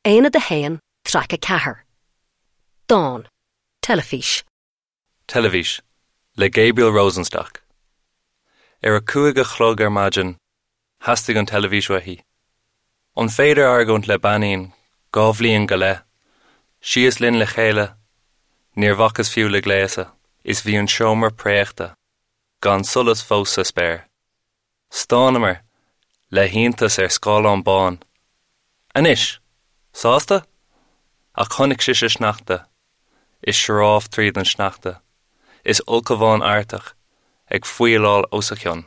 Aonad 1, Traic 4. Dán. Teilifís. Teilifís, le Gabriel Rosenstock. Ar a 5 a chlog ar maidin, theastaigh an teilifís uaithi. An féidir argóint le beainín, 2 bhliain go leith? Síos linn le chéile, níor bhacas fiú le gléasadh, is bhí an seomra préachta, gan solas fós sa spéir. Stánamar le hiontas ar scáileán bán. Anois! Sásta? Ach chonaic sise sneachta, is sioráf tríd an sneachta, is ulchabhán Artach ag faoileáil os a chionn.